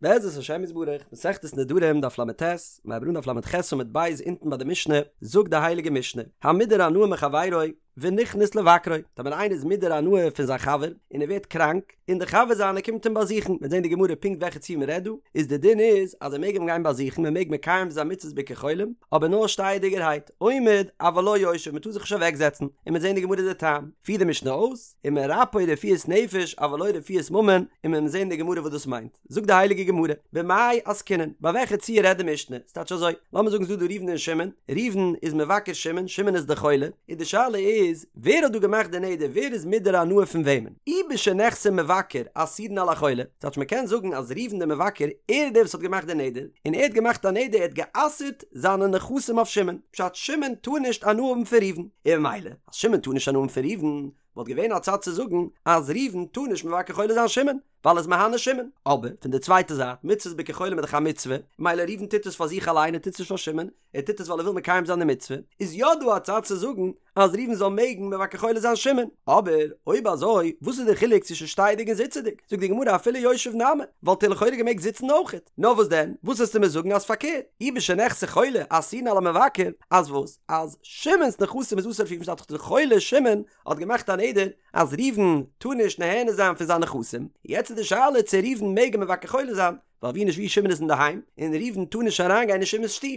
בעזרת השם יתברך, מסכת נדרים דף לט, מיר הייבן אן דף לח עמוד ב' אונטן ביי די משנה, זאגט די הייליגע משנה, המודר הנאה מחבירו ונכנס לבקרו, טאמער איינער איז מודר הנאה פון זיין חבר און ער ווערט קראנק, און דער חבר זיינער קומט אים באזוכן, מ'וועט זען די גמרא פונקט וועלכע ציור מ'רעדט דא, איז די דין איז אז ער מעג אים גיין באזוכן, מען מעג מקיים זיין מצות ביקור חולים, אבער נאר שטייעדיגערהייט, עומד אבל לא יושב, מען טאר זיך נישט אוועקזעצן, און מ'וועט זען די גמרא די טעם, פירט די משנה אויס, ומרפאו רפואת נפש אבל לא רפואת ממון, און מיר וועלן זען די גמרא וואס דאס מיינט. זאגט די הייליגע גמרא, במאי עסקינן, ביי וועלכע ציור רעדט די משנה? ס'טייטש אזוי, לאמיר זאגן ס'דא דא ראובן און שמעון, ראובן איז מבקר שמעון, שמעון איז די חולה, און די שאלה איז, ווער האט דא געמאכט די נדר, ווער איז מודר הנאה פון וועמען? אי בשנכסי מבקר אסורין על החולה, ס'טייטש מ'קען זאגן אז ראובן די מבקר, ער איז דער וואס האט געמאכט די נדר, און ער האט געמאכט א נדר, ער האט גע'אסר'ט זיינע נכסים אויף שמעון, פשט שמעון טאר נישט הנאה האבן פון ראובן, און ממילא אז שמעון טאר נישט הנאה האבן פון ראובן, וואלט געווען א צד צו זאגן אז ראובן טאר נישט מבקר חולה זיין שמעון, ווייל ער איז מהנה שמעון, אבער פון די צווייטע זייט, מצוות ביקור חולים איז דאך א מצוה, ממילא ראובן טוט עס פאר זיך אליין ער טוט עס נישט פאר שמעון, ער טוט עס ווייל ער וויל מקיים זיין די מצוה, איז יא דא א צד צו זאגן אז ראובן זאל מעגן מבקר חולה זיין שמעון, אבער אויב אזוי וואס איז די חילוק צווישן שטייעדיג און זיצעדיג, זאגט די גמרא אפילו יושב נמי, וואלט ער לכאורה געמעגט זיצן אויכעט, נאר וואס דען, וואס וועסטו מיר זאגן אז פארקערט, אי בשנכסי חולה אסורין על המבקר, אז וואס? אז שמעון'ס נכסים איז אסור אויף ראובן ס'טייטש דאך די חולה שמעון האט געמאכט א נדר אז ראובן טאר נישט נהנה זיין פון זיין נכסים, יעצט איז די שאלה צו ראובן מעג אים מבקר חולה זיין, ווייל ווי נישט ווי שמעון איז אינדערהיים, און ראובן טאר נישט אריינגיין אין שמעון'ס שטוב,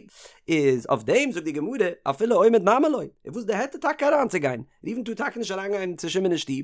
איז אויף דעם זאגט די גמרא אפילו עומד נמי לא, איז וואס די היתר טאקע אריינצוגיין, ראובן טאר טאקע נישט אריינגיין צו שמעון אין שטוב,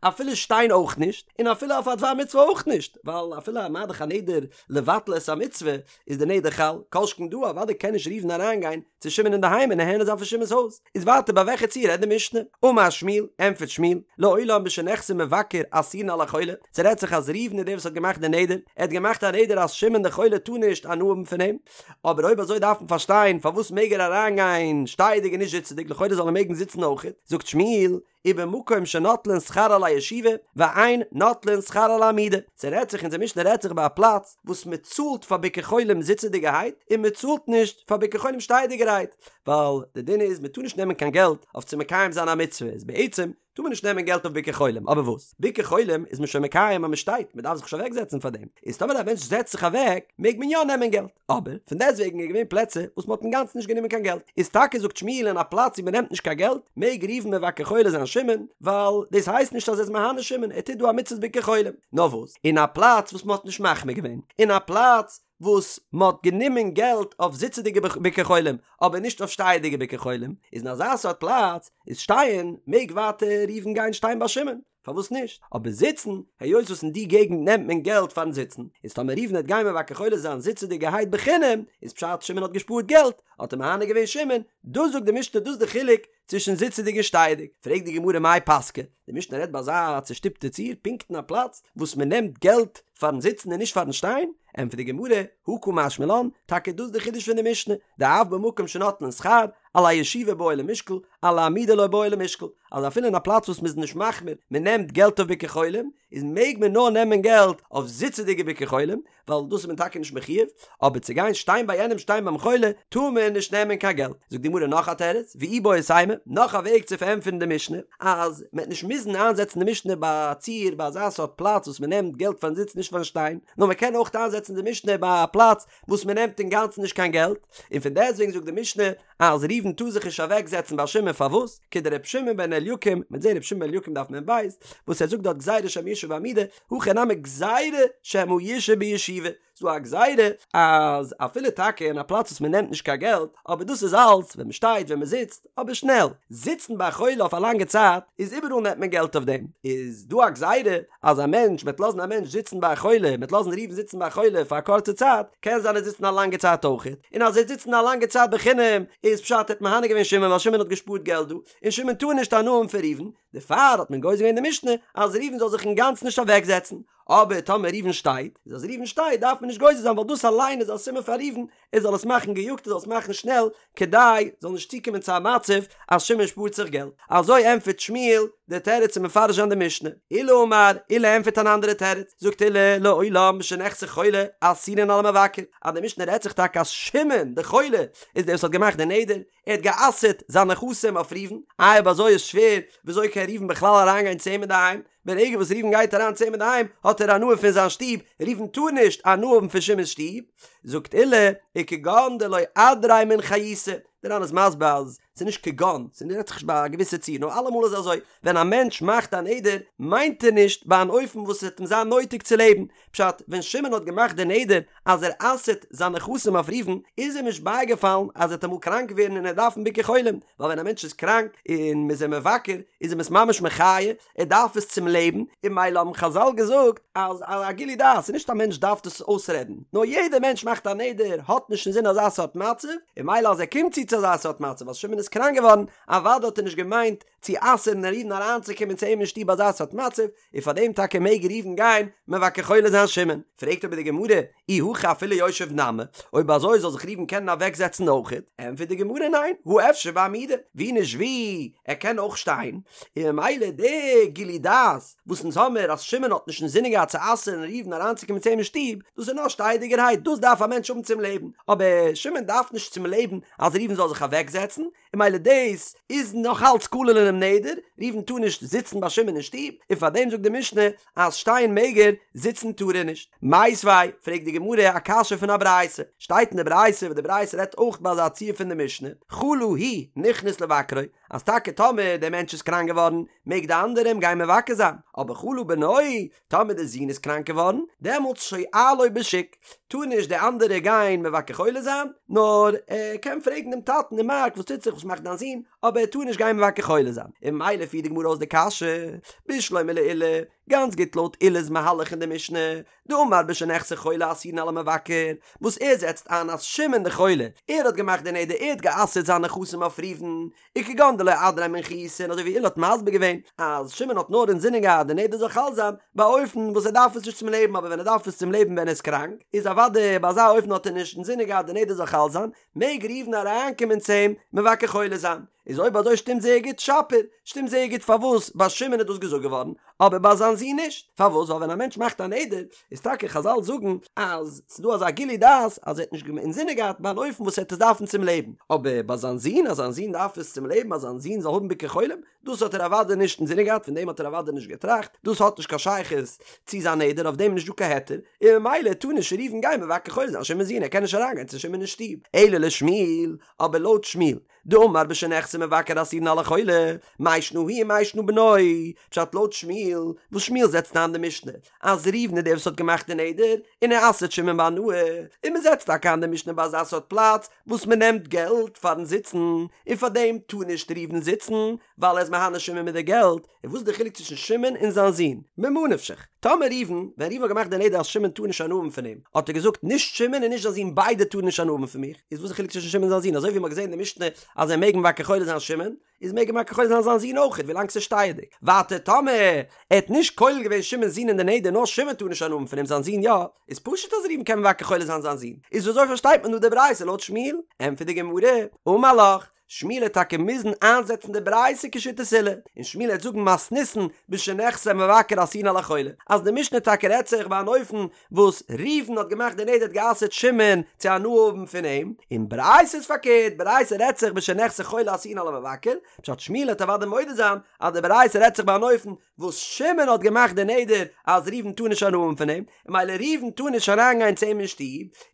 אפילו שטיין אויך נישט, און אפילו אויף א דבר מצוה אויך נישט, ווייל אפילו מה דאך א נדר לבטל את המצוה איז די נדר חל, כל שכן דא אוודאי קען נישט ראובן אריינגיין צו שמעון אינדערהיים און נהנה זיין פון שמעון'ס הויז, איז ווייטער ביי וועלכע ציור רעדט די משנה? אמר שמואל, ענטפערט שמואל, לעולם בשנכסי מבקר אסורין על החולה, ס'רעדט זיך אז ראובן איז דער וואס האט געמאכט די נדר, ער האט געמאכט א נדר אז שמעון דער חולה טאר נישט הנאה האבן פון אים, אבער אויב אזוי דארף מען פארשטיין פארוואס מעג ער אריינגיין שטייעדיג און נישט זיצעדיג, לכאורה זאל ער מעגן זיצן אויכעט, זאגט שמואל, ובמקום שנוטלין שכר על הישיבה ואין נוטלין שכר על העמידה, ס'רעדט זיך אונזער משנה רעדט זיך ביי א פלאץ וואס מ'צאלט פאר ביקור חולים זיצעדיגערהייט און מ'צאלט נישט פאר ביקור חולים שטייעדיגערהייט, ווייל די דין איז מ'טאר נישט נעמען קיין געלט אויף צו מקיים זיין א מצוה, איז בעצם טאר מען נישט נעמען געלט אויף ביקור חולים, אבער וואס? ביקור חולים איז מען שוין מקיים אז מ'שטייט, מ'דארף זיך נישט אוועקזעצן פאר דעם, איז טאמער א מענטש זעצט זיך אוועק מעג מען יא נעמען געלט. אבער פון דעסטוועגן איז געווען פלעצער וואס מ'האט אינגאנצן נישט גענומען קיין געלט, איז טאקע זאגט שמואל אין א פלאץ ווי מ'נעמט נישט קיין געלט מעג ראובן מבקר חולה זיין שמעון, ווייל דאס הייסט נישט אז ער איז מהנה שמעון, ער טוט דא א מצוות ביקור חולים. נאר וואס, אין א פלאץ וואס מ'האט נישט מחמיר געווען, אין א פלאץ וואס מ'האט גענומען געלט אויף זיצעדיגע ביקור חולים אבער נישט אויף שטייעדיגע ביקור חולים, איז אין אזא סארט פלאץ איז שטיין מעג ווייטער ראובן גיין שטיין ביי שמעון. פארוואס נישט? אבער זיצן, היות וואס אין די געגנט נעמט מען געלט פארן זיצן, איז טאמער ראובן וועט גיין מבקר חולה זיין זיצעדיגערהייט בחינם, איז פשט שמעון האט געשפארט געלט, האט ער מהנה געווען שמעון, דאס זאגט די משנה דאס די חילוק צווישן זיצעדיג און שטייעדיג, פרעגט די גמרא מאי פסקא, די משנה רעדט ביי אזא צושטופטע ציור פונקט אין א פלאץ וואס מען נעמט געלט פארן זיצן און נישט פארן שטיין, ענטפערט די גמרא, הא קא משמע לן, טאקע דאס די חידוש פון די משנה, דאף במקום שנוטלין שכר, על הישיבה בעי למשקל, על העמידה לא בעי למשקל, אז אפילו אין א פלאץ וואס מ'איז נישט מחמיר, מ'נעמט געלט אויף ביקור חולים, איז מעג מען נאר נעמען געלט אויף זיצעדיגע ביקור חולים, ווייל דאס איז מען טאקע נישט מחויב, אבער צו גיין שטיין ביי יענעם שטיין ביים חולה, טאר מען נישט נעמען קיין געלט. זאגט די גמרא נאך א תירוץ, ואיבעית אימא, נאך א וועג צו פארענטפערן די משנה, אז מ'עט נישט מוזן איינזעצן די משנה ביי א ציור ביי אזא סארט פלאץ וואס מ'נעמט געלט פארן זיצן נישט פארן שטיין, נאר מ'קען אויך איינזעצן די משנה ביי א פלאץ וואס מ'נעמט אינגאנצן נישט קיין געלט, און פון דעסטוועגן זאגט די משנה אז ראובן טאר זיך נישט אוועק זעצן ביי שמעון פארוואס? כדר' שמעון בן אליקים, מ'וועט זעהן ר' שמעון בן אליקים דף מ"ב, וואס ער זאגט דארט גזירה שמא ישהא בעמידה, הכא נמי גזירה שמא ישהא בישיבה, ס'דא א גזירה אז אפילו טאקע אין א פלאץ וואס מ'נעמט נישט קיין געלט, אבער דאס איז אלץ ווען מ'שטייט ווען מ'זיצט, אבער שנעל, זיצן ביי א חולה אויף א לאנגע צייט איז איבעראל נעמט מען געלט אויף דעם, איז דא א גזירה אז א מענטש מ'עט לאזן א מענטש זיצן ביי א חולה, מ'עט לאזן ראובן זיצן ביי א חולה פאר א קורצע צייט, קען זיין ער זיצן א לאנגע צייט אויכעט, און אז ער זיצן א לאנגע צייט בחינם איז פשט ער האט מהנה געווען שמעון ווייל שמעון האט געשפארט געלט דא, און שמעון טאר נישט הנאה האבן פון ראובן, דערפאר האט מען גוזר געווען די משנה אז ראובן זאל זיך אינגאנצן נישט אוועקזעצן, אבער טאמער ראובן שטייט, איז אז ראובן שטייט דארף מען נישט גוזר זיין ווייל דאס אליין איז א סימן פאר ראובן ער זאל עס מאכן געיאגט ער זאל עס מאכן שנעל כדי זאל נישט צוקומען צו א מצב אז שמעון שפארט זיך געלט. אזוי ענטפערט שמואל די תירוץ צו מפרש זיין די משנה. עולא אמר, עולא ענטפערט אן אנדערע תירוץ, זאגט עולא לעולם בשנכסי חולה אסורין על המבקר, אז די משנה רעדט זיך טאקע אז שמעון די חולה איז דער וואס האט געמאכט די נדר, ער האט גע'אסר'ט זיינע נכסים אויף ראובן, איי אויב אזוי איז שווער וויאזוי קען ראובן בכלל אריינגיין צו אים אינדערהיים? ברגע וואס ראובן גייט אריין צו אים אינדערהיים האט ער הנאה פון זיין שטוב, ראובן טאר נישט הנאה האבן פון שמעון'ס שטוב, זאגט עולא, וכגון דלא אדריה מן חיותא, דער ר"ן איז מסביר אז ס'איז נישט כגון, ס'רעדט זיך נישט ביי א געוויסע ציור, נאר אלעמאל איז אזוי, ווען א מענטש מאכט א נדר מיינט ער נישט ביי אן אופן וואס עס וועט אים זיין נויטיג צו לעבן, פשט, ווען שמעון האט געמאכט די נדר אז ער אסר'ט זיין נכסים אויף ראובן, איז אים נישט בייגעפאלן אז ער וועט אמאל קראנק ווערן און ער דארפן ביקור חולים, ווייל ווען א מענטש איז קראנק און מ'איז אים מבקר איז אים עס ממש מחיה, ער דארף עס צום לעבן, און ממילא האבן חז"ל געזאגט אז א גילוי דעת איז נישט א מענטש דארף דאס אויסרעדן, נאר יעדער מענטש מאכט א נדר האט נישט אינזין אזא סארט מצב, און ממילא אז ער קומט צו צו אזא סארט מצב אז שמעון איז קראנק געווארן, אוודאי האט ער נישט געמיינט צו אסר'ן ראובן אריינצוקומען צו אים אין שטוב אזא סארט מצב, און פאר דעם טאקע מעג ראובן גיין מבקר חולה זיין שמעון. פרעגט אבער די גמרא, אי הכי אפילו יושב נמי, אויב אזוי זאל זיך ראובן קענען אוועקזעצן אויכעט? ענטפערט די גמרא ניין, הא אפשר בעמידה, ווי נישט ווי, ער קען אויך שטיין, און ממילא די גילוי דעת וואס אונז האמיר אז שמעון האט נישט אינזינען געהאט צו אסר'ן ראובן אריינצוקומען צו אים אין שטוב, דאס איז נאר שטייעדיגערהייט, דאס דארף א מענטש האבן צום לעבן, אבער שמעון דארף נישט צום לעבן אז ראובן זאל זיך אוועקזעצן, און ממילא דאס איז נאך אלץ כולל אינעם נדר, ראובן טאר נישט זיצן ביי שמעון אין שטוב, און פאר דעם זאגט די משנה אז שטיין מעג ער, זיצן טאר ער נישט. מיתיבי, פרעגט די גמרא א קשיא פון א ברייתא, שטייט אין די ברייתא וואס די ברייתא רעדט אויך ביי אזא ציור פון די משנה, חלה הוא נכנס לבקרו, אז טאקע טאמער דער מענטש איז קראנק געווארן מעג די אנדערע אים גיין מבקר זיין, אבער חלה בנו, טאמער די זון איז קראנק געווארן, דעמאלטס שואלו בשוק, טאר נישט די אנדערע גיין מבקר חולה זיין, נאר ער קען פרעגן דעם טאטן אין מארק וואס טוט זיך וואס מאכט דיין זון, אבער ער טאר נישט גיין מבקר חולה זיין, און ממילא פירט די גמרא אויס די קשיא, בשלמא לעולא, גאנץ גוט לויט עולא'ס מהלך אין די משנה, דאמר בשנכסי חולה אסורין על המבקר, וואס ער זעצט איין אז שמעון די חולה, ער האט געמאכט די נדר ער האט גע'אסר'ט זיינע נכסים אויף ראובן, וכגון דלא אדריה מן חיותא און אזוי ווי עולא האט מסביר געווען אז שמעון האט נאר אינזינען געהאט די נדר זאל חל זיין ביי א אופן וואס ער דארף עס נישט צום לעבן אבער ווען ער דארף עס צום לעבן ווען ער איז קראנק איז אוודאי ביי אזא אופן האט ער נישט אינזינען געהאט די נדר זאל חל זיין מעג ראובן אריינקומען צו אים מבקר חולה זיין איז אויב אזוי שטימט זייער גוט שפיר שטימט זייער גוט פארוואס ביי שמעון איז דאס געזאגט געווארן אבער ביי זיין זון נישט פארוואס ווייל ווען א מענטש מאכט א נדר איז טאקע חזל זאגן אז ס'איז דא אזא גילוי דעת אז ער האט נישט אינזינען געהאט ביי אן אופן וואס ער וועט עס דארפן צום לעבן, אבער ביי זיין זון אז זיין זון דארף עס צום לעבן אז זיין זון זאל האבן ביקור חולים, דאס האט ער אוודאי נישט אינזינען געהאט פון דעם האט ער אוודאי נישט געטראכט, דאס האט נישט קיין שייכות צו זיין נדר אויף דעם איז נישט דא קיין היתר, און ממילא טאר נישט ראובן גיין מבקר חולה זיין שמעון'ס זון ער קען נישט אריינגיין צו שמעון אין שטוב, אלא לשמואל, אבער לויט שמואל, דאמר בשנכסי מבקר אסורין על החולה, מאי שנא הוא ומאי שנא בנו, פשט לויט שמואל, וואס שמואל זעצט איין די משנה, אז ראובן איז דער וואס האט געמאכט די נדר, און ער אסר'ט שמעון בהנאה, און מען זעצט טאקע איין די משנה ביי אזא סארט פלאץ, וואס מען נעמט געלט פארן זיצן, און פאר דעם טאר נישט ראובן זיצן, ווייל ער איז מהנה שמעון מיט די געלט, און וואס איז די חילוק צווישן שמעון און זיין זון? ממה נפשך, טאמער ראובן, ווען ראובן האט געמאכט די נדר אז שמעון טאר נישט הנאה האבן פון אים, האט ער געזאגט נישט שמעון און נישט זיין זון ביידע טארן נישט הנאה האבן פון מיך, איז וואס איז די חילוק צווישן שמעון און זיין זון? אזוי ווי מ'האט געזען אין די משנה אז ער מעג מבקר חולה זיין שמעון, איז מעג ער מבקר חולה זיין זיין זון אויכעט ווילאנג ס'איז שטייעדיג. ווייטער טאמער ער האט נישט כולל געווען שמעון'ס זון אין די נדר נאר שמעון טאר נישט הנאה האבן פון אים זיין זון יא, איז פשוט אז ראובן קען מבקר חולה זיין זיין זון. איז ווי אזוי פארשטייט מען דא די ברייתא לויט שמואל? ענטפערט די גמרא, אמר לך, שמואל וועט טאקע מוזן איינזעצן די ברייתא כשיטת עולא, און שמואל וועט זאגן מתניתין בשנכסי מבקר אסורין על החולה, אז די משנה טאקע רעדט זיך ביי אן אופן וואס ראובן האט געמאכט די נדר האט גע'אסר'ט שמעון צו הנאה האבן פון אים, און ברייתא איז פארקערט, ברייתא רעדט זיך בשנכסי חולה אסורין על המבקר, פשט שמואל וועט אוודאי מודה זיין אז די ברייתא רעדט זיך ביי אן אופן וואס שמעון האט געמאכט די נדר אז ראובן טאר נישט הנאה האבן פון אים, און ממילא ראובן טאר נישט אריינגיין צו אים אין שטוב,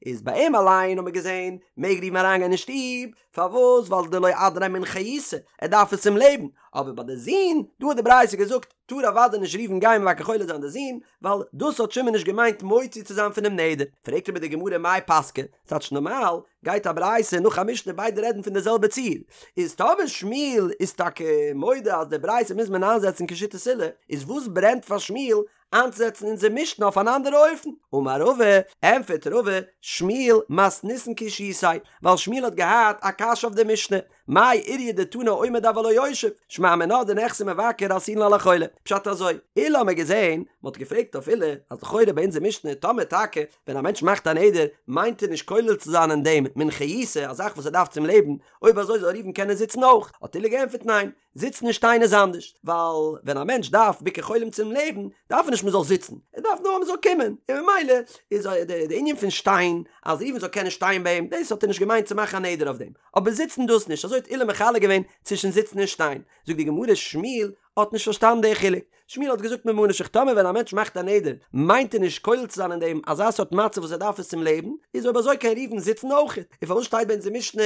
איז ביי אים אליין האט מען געזען מעג ראובן אריינגיין אין שטוב, פארוואס? ווייל דלא אדריה מן חיותא, ער דארף עס צום לעבן, אבער ביי די זון, דא האט די ברייתא געזאגט, טאר אוודאי נישט ראובן גיין מבקר חולה זיין די זון, ווייל דאס האט שמעון נישט געמיינט מוציא צו זיין פונעם נדר. פרעגט אבער די גמרא מאי פסקא, ס'טייטש נארמאל גייט א ברייתא נאך א משנה ביידע רעדן פון די זעלבע ציור, איז טאמער שמואל איז טאקע מודה אז די ברייתא מוז מען איינזעצן כשיטת עולא, איז וואס ברענט פאר שמואל איינצוזעצן אונזער משנה אויף אן אנדערע אופן? אמר רבא, ענטפערט רבא, שמואל מתניתין קשיתיה, ווייל שמואל האט געהאט א קשיא אויף די משנה, מאי איריא דתנא עומד אבל לא יושב, שמע מינה דנכסי מבקר אסורין על החולה, פשט אזוי, עולא האמיר געזען, מען האט געפרעגט אויף עולא, אז לכאורה ביי אונזער משנה, טאמער טאקע ווען א מענטש מאכט א נדר, מיינט ער נישט כולל צו זיין אין דעם מן חיותא, א זאך וואס ער דארף צום לעבן, אויב אזוי זאל ראובן קענען זיצן אויך, האט עולא געענטפערט ניין, זיצן און שטיין איז אנדערש, ווייל ווען א מענטש דארף ביקור חולים צום לעבן, דארף ער נישט מען זאל זיצן, ער דארף נאר מען זאל קומען, און ממילא איז די ענין פון שטיין, אז ראובן זאל קענען שטיין ביי אים, דאס האט ער נישט געמיינט צו מאכן א נדר אויף דעם, אבער זיצן דאס נישט, אזוי האט עולא מחלק געווען צווישן זיצן און שטיין, זאגט די גמרא שמואל. האט נישט פארשטאנען די חילוק, שמואל האט געזאגט ממה נפשך טאמער ווען א מענטש מאכט א נדר מיינט ער נישט כולל צו זיין אין דעם אזא סארט מצב וואס ער דארף עס צום לעבן, איז אויב אזוי קען ראובן זיצן אויכעט, און פארוואס שטייט ביי אונז אין משנה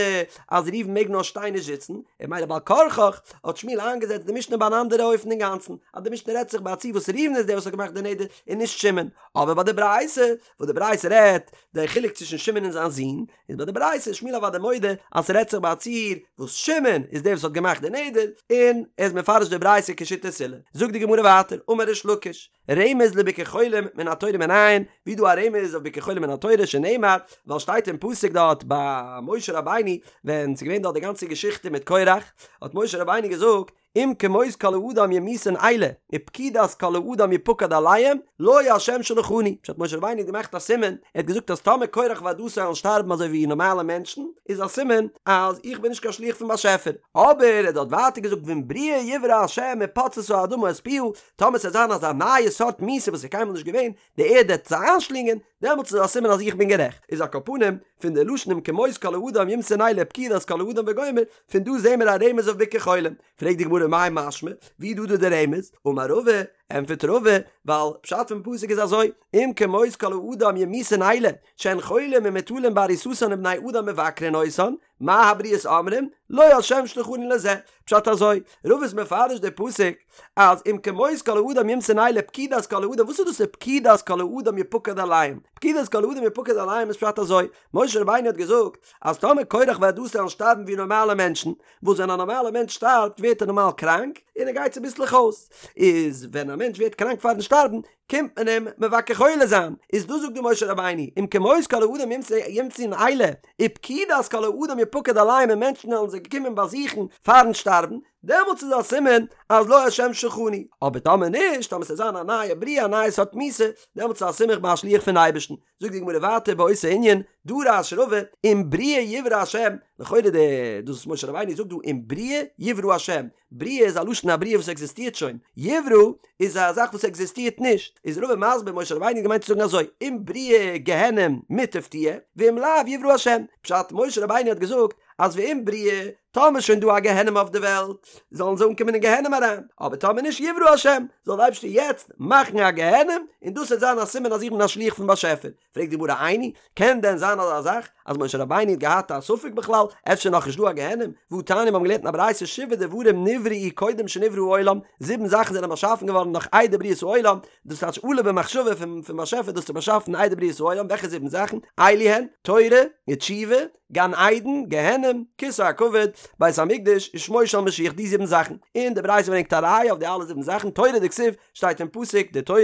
אז ראובן מעג נאר שטיין נישט זיצן, און ממילא בעל כרחך האט שמואל איינגעזעצט די משנה ביי אן אנדערע אופן אינגאנצן, אז די משנה רעדט זיך ביי א ציור וואס ראובן איז דער וואס האט געמאכט די נדר און נישט שמעון, אבער ביי די ברייתא וואס די ברייתא רעדט די חילוק צווישן שמעון און זיין זון, איז ביי די ברייתא איז שמואל אוודאי מודה אז ס'רעדט זיך ביי א ציור וואס שמעון איז דער וואס האט געמאכט די נדר, און ער איז מפרש די ברייתא כשיטת עולא. זאגט די גמרא ווייטער, אמר ריש לקיש, רמז לביקור חולים מן התורה מנין, ווי דא א רמז אויף ביקור חולים מן התורה שנאמר, ווייל שטייט אין פסוק דארט ביי משה רבינו ווען ס'איז געווען דארט די גאנצע געשיכטע מיט קורח, האט משה רבינו געזאגט, אם כמות כל האדם ימותון אלה, ופקודת כל האדם יפקד עליהם, לא ה' שלחני. פשט משה רבינו האט געמאכט א סימן, ער האט געזאגט אז טאמער קורח ועדתו וועלן שטארבן אזוי ווי נארמאלע מענטשן, איז א סימן אז איך בין נישט קיין שליח פון באשעפער. אבער ער האט דארט ווייטער געזאגט ואם בריאה יברא ה' ופצתה האדמה את פיה, טאמער ס'וועט זיין אזא נייע סארט מיתה וואס איז קיינמאל נישט געווען, די ערד וועט זיי איינשלינגען, דעמאלטס איז א סימן אז איך בין גערעכט. איז על כל פנים, פון די לשון אם כמות כל האדם ימותון אלה ופקודת כל האדם וגומר, פון דא זעהן מיר א רמז אויף ביקור חולים. פרעגט די גמרא מאי משמע, ווי דא דא די רמז? אמר רבא, ענטפערט רבא, ווייל פשט פון פסוק איז אזוי, אם כמות כל האדם ימותון אלה, שהן חולים ומוטלים בעריסתן ובני אדם מבקרין אותן, מה הבריות אומרים? לא ה' שלחני לזה. פשט אזוי, רבא איז מפרש די פסוק אז אם כמות כל האדם ימותון אלה פקודת כל האדם, וואס איז דאס פקודת כל האדם יפקד עליהם? פקודת כל האדם יפקד עליהם איז פשט אזוי, משה רבינו האט געזאגט אז טאמער קורח ועדתו וועלן שטארבן ווי נארמאלע מענטשן, וואס ווען א נארמאלע מענטש שטארבט ווערט ער נארמאל קראנק און ער גייט צוביסלעך אויס, איז ווען א מענטש ווערט קראנק פארן שטארבן קומט מען אים מבקר חולה זיין, איז דאס זאגט דא משה רבינו, אם כמות כל האדם ימותון אלה, ופקודת כל האדם יפקד עליהם און מענטשן וועלן זיי קומען באזוכן פארן שטארבן, דעמאלטס איז א סימן אז לא השם שלחני, אבער טאמער נישט, טאמער ס'וועט זיין א נייע בריאה א נייע סארט מיתה, דעמאלטס איז א סימן איך בין א שליח פון אייבערשטן. זאגט די גמרא ווייטער באותו ענין, דרש רבא, אם בריאה יברא השם, לכאורה די דאס וואס משה רבינו זאגט דא אם בריאה יברא השם, בריאה איז א לשון א בריאה וואס עקזיסטירט שוין, יברא איז א זאך וואס עקזיסטירט נישט, איז רבא מסביר משה רבינו האט געמיינט צו זאגן אזוי, אם בריאה גיהנום מוטב תהיה, ואם לאו יברא השם, פשט משה רבינו האט געזאגט אז ואם בריאה, טאמער איז שוין דא א גיהנום אויף די וועלט, זאלן זיי אנקומען אין גיהנום אריין, אבער טאמער נישט יברא השם, זאל דער אייבערשטער יעצט מאכן א גיהנום, און דאס וועט זיין א סימן אז איך בין א שליח פון באשעפער. פרעגט די גמרא איני, קען דען זיין אזא זאך אז משה רבינו האט געהאט א ספק בכלל, אפשר נאך נישט דא א גיהנום, והא תניא מיר האבן געלערנט אין א ברייתא שבעה דברים נבראו קודם שנברא העולם, זיבן זאכן זענען באשאפן געווארן נאך איידער בריאת העולם, דאס טייטש עלה במחשבה פון פון באשעפער דאס צו באשאפן איידער בריאת העולם, וועלכע זיבן זאכן? אלו הן, תורה, ותשובה, גן עדן, גיהנום, כסא הכבוד, בית המקדש, ושמו של משיח, די זיבן זאכן, און די ברייתא ברענגט א ראיה אויף די אלע זיבן זאכן, תורה דכתיב, שטייט אין פסוק, די תורה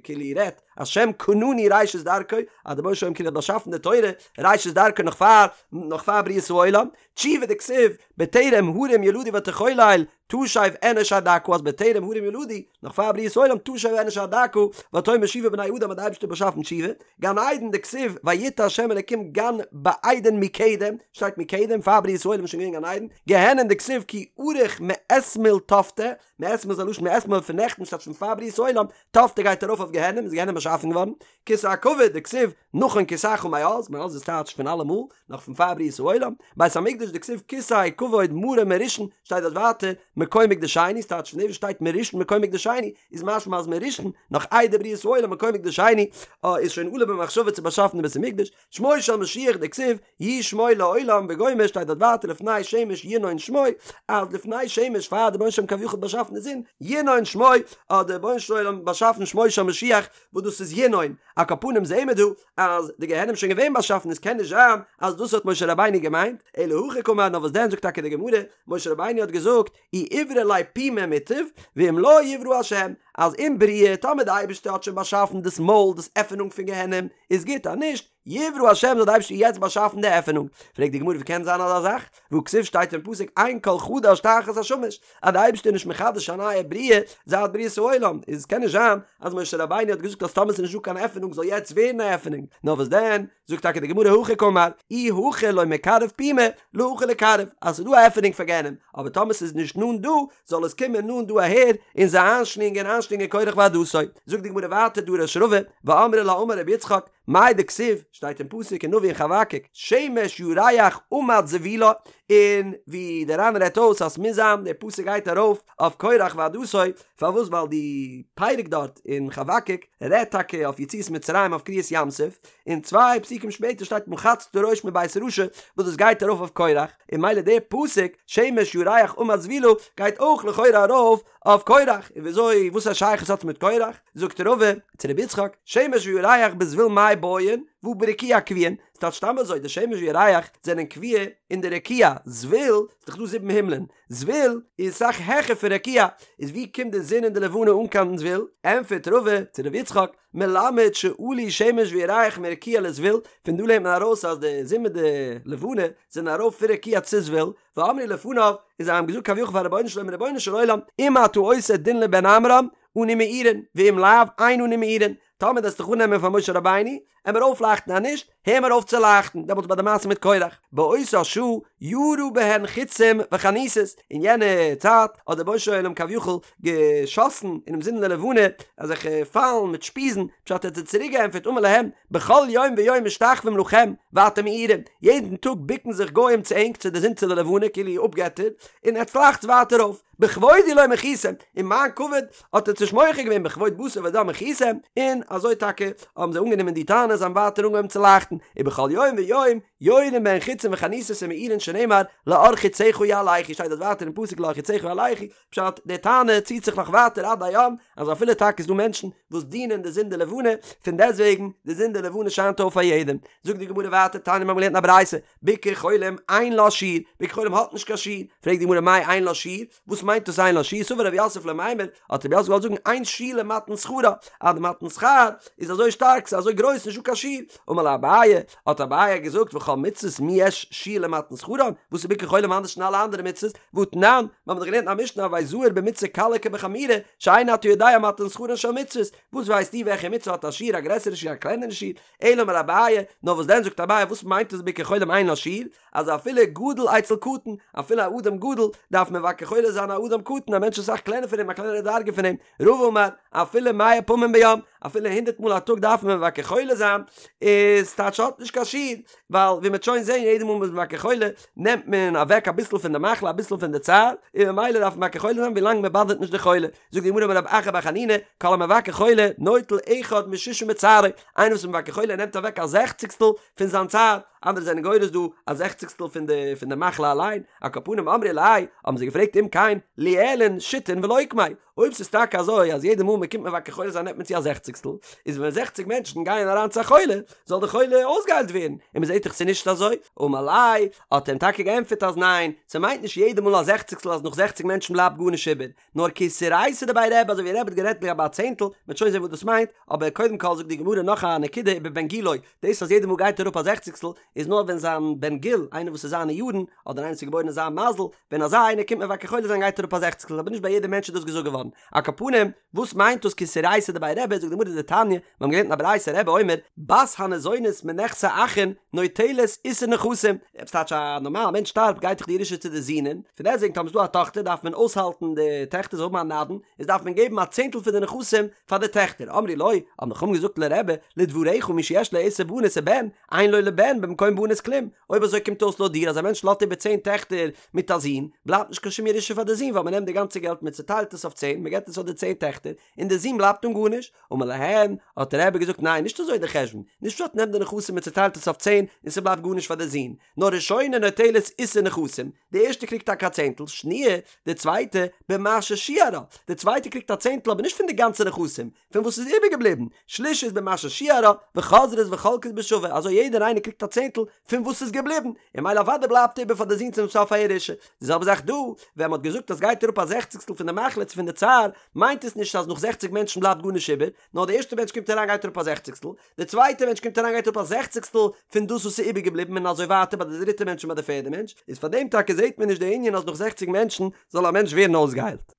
כאילו רעדט, השם קנני ראשית דרכו, אז דער רבונו של עולם כאילו האט באשאפן די תורה, ראשית דרכו נאך פאר, נאך פאר בריאת העולם, תשובה דכתיב, בטרם הרים יולדו ותחולל, תשב אנוש עד דכא אז בטרם הרים יולדו, נאך פאר בריאת העולם, תשב אנוש עד דכא, ותאמר שובו בני אדם האט די אייבערשטער באשאפן תשובה, גן עדן דכתיב, ויטע השם אלקים גן בעדן מקדם, שטייט מקדם, פאר בריאת העולם איז שוין געווען גן עדן, גיהנום דכתיב כי ארוך מאתמול תפתה, מאתמול איז א לשון מאתמול פון נעכטן ס'טייטש פון פאר בריאת העולם, תפתה גייט ארויף אויף גיהנום איז גיהנום באשאפן געווארן, כסא הכבוד דכתיב נכון כסאך מאז, מאז איז טייטש פון אלעמאל, נאך פון פאר בריאת העולם, בית המקדש דכתיב כסא כבוד מרום מראשון, שטייט דארט ווייטער מקום מקדשנו, ס'טייטש פון דעם וואס שטייט מראשון מקום מקדשנו, איז משמע אז מראשון, נאך איידער בריאת העולם מקום מקדשנו, איז שוין עלה במחשבה צו באשאפן די בית המקדש, שמו של משיח דכתיב יהי שמו לעולם וגומר שטייט דארט ווייטער לפני שמש ינון שמו אז לפני שמש פאר דער רבונו של עולם כביכול האט באשאפן די זון ינון שמו האט דער רבונו של עולם באשאפן שמו של משיח וואס דאס איז ינון על כל פנים זעהן מיר דא אז די גיהנום איז שוין געווען באשאפן עס קען נישט זיין אז דאס האט משה רבינו געמיינט אלא הכי קאמר נאר וואס דען זאגט טאקע די גמרא משה רבינו האט געזאגט אי איברי ליה פומא מוטב, ואם לא יברא השם, אז אם בריאה, טאמער די אייבערשטער האט שוין באשאפן דאס מויל, דאס עפענונג פון גיהנום, איז גוט, אז נישט, יברא השם זאל די אייבערשטער יעצט באשאפן די עפענונג. פרעגט די גמרא ווי קען זיין אזא זאך? והכתיב שטייט אין פסוק אין כל חדש תחת השמש, אז די אייבערשטער איז נישט מחדש א נייע בריאה זייט בריאת העולם, איז קען נישט זיין אז משה רבינו האט געזאגט אז טאמער ס'איז נישט דא קיין עפענונג זאל יעצט ווערן א עפענונג, נאר וואס דען, זאגט טאקע די גמרא הכי קאמר, אי הכא לא מיקרב פומא, להכא ליקרב, אז ס'איז דא א עפענונג פאר גיהנום, אבער טאמער ס'איז נישט נאנט דא, זאל עס קומען נאנט דא אהער, און זיי איינשלינגען, איינשלינגען קרח ועדתו. זאגט די גמרא ווייטער דרש רבא, ואמרי לה אמר רבי יצחק, מאי דכתיב, שטייט אין פסוק אין נביא אין חבקוק, שמש ירח עמד זבולה, און ווי דער ר"ן רעדט אויס אז ס'מוז זיין דער פסוק גייט ארויף אויף קרח ועדתו, פארוואס ווייל די פרק דארט אין חבקוק רעדט טאקע אויף יציאת מצרים אויף קריעת ים סוף, און צוויי פסוקים שפעטער שטייט מחצת ראש מבית רשע וואס דאס גייט ארויף אויף קרח, און ממילא דער פסוק שמש ירח עמד זבולה גייט אויך לכאורה ארויף אויף קרח, און וויאזוי וואס א שייכות האט עס מיט קרח? זאגט רבא צו רבי יצחק, שמש וירח בזבול מאי בעיין, והא ברקיע קביעין, ס'טייטש סתם אזוי, די שמש וירח זענען קבוע אין די רקיע, זבול, ס'איז דאך דא זיבן הימלען, זבול איז אסאך העכער פון רקיע, איז ווי קומט די זון און די לבנה אן קיין זבול? ענטפערט רבא צו רבי יצחק, מלמד שעלו שמש וירח מרקיע לזבול, פון דא לערנט מען ארויס אז די זון מיט די לבנה זענען ארויף פון רקיע צו זבול, ואמרו לפניו, און זיי האבן געזאגט כביכול פאר רבונו של עולם, רבונו של עולם, אם אתה עושה דין לבן עמרם, אנו מאירין, ואם לאו, אין אנו מאירין, טאמער דו וועסט דיך אננעמען פאר משה רבינו, עמער אויפלייכטן אז נישט, הער מיר אויף צו לייכטן, דעמאלטס ביי די מעשה מיט קורח, באותה שעה ירה בהן חיצים וחניתות, אין יענע צייט האט דער רבונו של עולם כביכול געשאסן אינעם זון און די לבנה אזעלכע פיילן מיט שפיזן, פשט ער האט זיי צוריק געענטפערט אמר להם, בכל יום ויום משתחווים לכם ואתם מאירים, יעדן טאג בוקן זיך גוים צו ענק צו די זון צו די לבנה כאילו אפגעטער, און עטס לייכטס ווייטער אויף, בכבודי לא מחיתם, אין מיין כבוד האט עטס נישט מוחה געווען בכבוד בשר ודם מחיתם, און אזוי טאקע האבן זיי אנגענומען די טענה זיי האבן ווייטער אנגעהויבן צו לייכטן, ובכל יום ויום יורין בהן חיצים וחניתות ומאירין שנאמר לאור חציך יהלכו שטייט דארט ווייטער אין פסוק לאור חציך יהלכו, פשט, די טענה ציט זיך נאך ווייטער עד היום, אז אפילו טאקע איז דא מענטשן וואס דינען די זון די לבנה, פון דעסטוועגן די זון די לבנה שיינט אויף פאר יעדעם. זאגט די גמרא ווייטער, תניא מיר האבן געלערנט אין א ברייתא, ביקור חולים אין לה שיעור, ביקור חולים האט נישט קיין שיעור, פרעגט די גמרא מאי אין לה שיעור, וואס מיינט דאס אין לה שיעור, סבר רב יוסף למימר, האט רב יוסף געוואלט זאגן אין שיעור למתן שכרה, אז די מתן שכר איז אזוי שטארק, ס'איז אזוי גרויס נישטא קיין שיעור, אמר ליה אביי, האט אביי געזאגט וכל מצוות מי יש שיעור למתן שכרן, וואס איז ביקור חולים אנדערש פון אלע אנדערע מצוות, והתנן, מיר האבן דאך געלערנט אין א משנה הוי זהיר במצוה קלה כבחמורה, שאין אתה יודע מתן שכרן של מצוות, וואס ווייסטו וועלכע מצוה האט א שיעור א גרעסערע שיעור א קלענערע שיעור, אלא אמר אביי, נאר וואס דען זאגט אביי וואס מיינט עס ביקור חולים אין לה שיעור, אז אפילו גדול אצל קטן, אפילו א אדם גדול, דארף מבקר חולה זיין א אדם קטן, א מענטש אסאך קלענער פון אים, א קלענערע דרגה פון אים, רבא אמר, אפילו מאה פעמים ביום, אפילו הונדערט מאל א טאג דארף מען מבקר חולה זיין, איז טייטש האט נישט קיין שיעור, ווייל ווי מ'וועט שוין זען יעדע מאל מ'איז מבקר חולה, נעמט מען אוועק אביסל פון די מחלה אביסל פון די צער, און ממילא דארף מען מבקר חולה זיין ווילאנג מ'באדערט נישט די חולה. זאגט די גמרא אמר רב אחא בר חנינא, כל המבקר חולה נוטל אחד משישים מצערו, איינער וואס איז מבקר חולה נעמט אוועק א זעכציגסטל פון זיין צער, אנדערע זענען גורס דא א זעכציגסטל פון די פון די מחלה אליין, על כל פנים אמרי ליה, האבן זיי געפרעגט אם כן ליעלון שיתין ולוקמיה, אויב ס'איז טאקע אזוי אז יעדע מאל מ'קומט מבקר חולה זיין נעמט מען צו א זעכציגסטל, איז ווען זעכציג מענטשן גייען אריין צו א חולה, זאל די חולה אויסגעהיילט ווערן, און מ'זעט דאך ס'איז נישט אזוי, אמר ליה, האט ער אים טאקע געענטפערט אז ניין, ס'מיינט נישט יעדע מאל א זעכציגסטל אז נאך זעכציג מענטשן בלייבט גארנישט איבער, נאר כאיסורייתא דבי רבי אזוי ווי רבי האט גערעדט לגבי א צענטל, מ'וועט שוין זען וואס דאס מיינט, אבער קודם כל זאגט די גמרא נאך א נקודה איבער בן גילו, דאס אז יעדע מאל גייט אראפ א זעכציגסטל איז נאר ווען זיין בן גיל, איינער וואס איז זיינע יארן, אדער איינער וואס איז געבוירן אין זיין מזל, ווען אזא איינער קומט מבקר חולה זיין גייט אראפ א זעכציגסטל, אבער נישט ביי יעדע מענטש איז דאס געזאגט געווארן. על כל פנים, וואס מיינט דאס כאיסורייתא דבי רבי, זאגט די גמרא דתניא, מיר האבן געלערנט אין א ברייתא רבי אומר, בת הניזונת מנכסי אחין נוטלת עישור נכסים, עפעס טייטש א נארמאל מענטש שטארבט גייט דאך די ירושה צו די זינען, פון דעסטוועגן טאמער איז דא א טאכטער דארף מען אויסהאלטן די טעכטער זאל האבן א נדן, איז דארף מען געבן א צענטל פון די נכסים פאר די טעכטער, אמרו לו, האבן די חכמים געזאגט לרבי, לדבריך מי שיש לו עשר בנות ובן, אין לו לבן במקום בנות כלום, אויב אזוי קומט אויס לויט דיר אז א מענטש לאזט איבער צען טעכטער מיט א זון, בלייבט נישט קיין שום ירושה פאר די זון ווייל מען נעמט די גאנצע געלט מען צעטיילט עס אויף צען, מען געבט עס פאר די צען טעכטער, און די זון בלייבט אן גארנישט. אמר להן, האט רבי געזאגט ניין נישט אזוי די חשבון, נישט פשט נעמט די נכסים מען צעטיילט עס אויף צען און ס'בלייבט גארנישט פאר די זון, נאר ראשונה נוטלת עישור נכסים, די ערשטע קריגט טאקע א צענטל, שניה, די צווייטע, במה ששיערה, די צווייטע קריגט א צענטל אבער נישט פון די גאנצע נכסים, פון וואס איז איבערגעבליבן, שלישית במה ששיערה, וחוזרות וחולקות בשווה, אזוי יעדער איינער קריגט א צענטל פון וואס איז געבליבן, און ממילא אוודאי בלייבט איבער פאר די זון צום סוף א ירושה. די זעלבע זאך דא, ווען מ'האט געזאגט אז גייט אראפ א זעכציגסטל פון די מחלה צו פון די צער, מיינט עס נישט אז נאך זעכציג מענטשן בלייבט גארנישט איבער, נאר די ערשטע מענטש קומט אריין גייט אראפ א זעכציגסטל, די צווייטע מענטש קומט אריין גייט אראפ א זעכציגסטל פון דאס וואס איז איבערגעבליבן און אזוי ווייטער ביי די דריטע מענטש און ביי די פערדע מענטש, איז פאר דעם טאקע זעט מען נישט די ענין אז נאך זעכציג מענטשן זאל א מענטש ווערן אויסגעהיילט.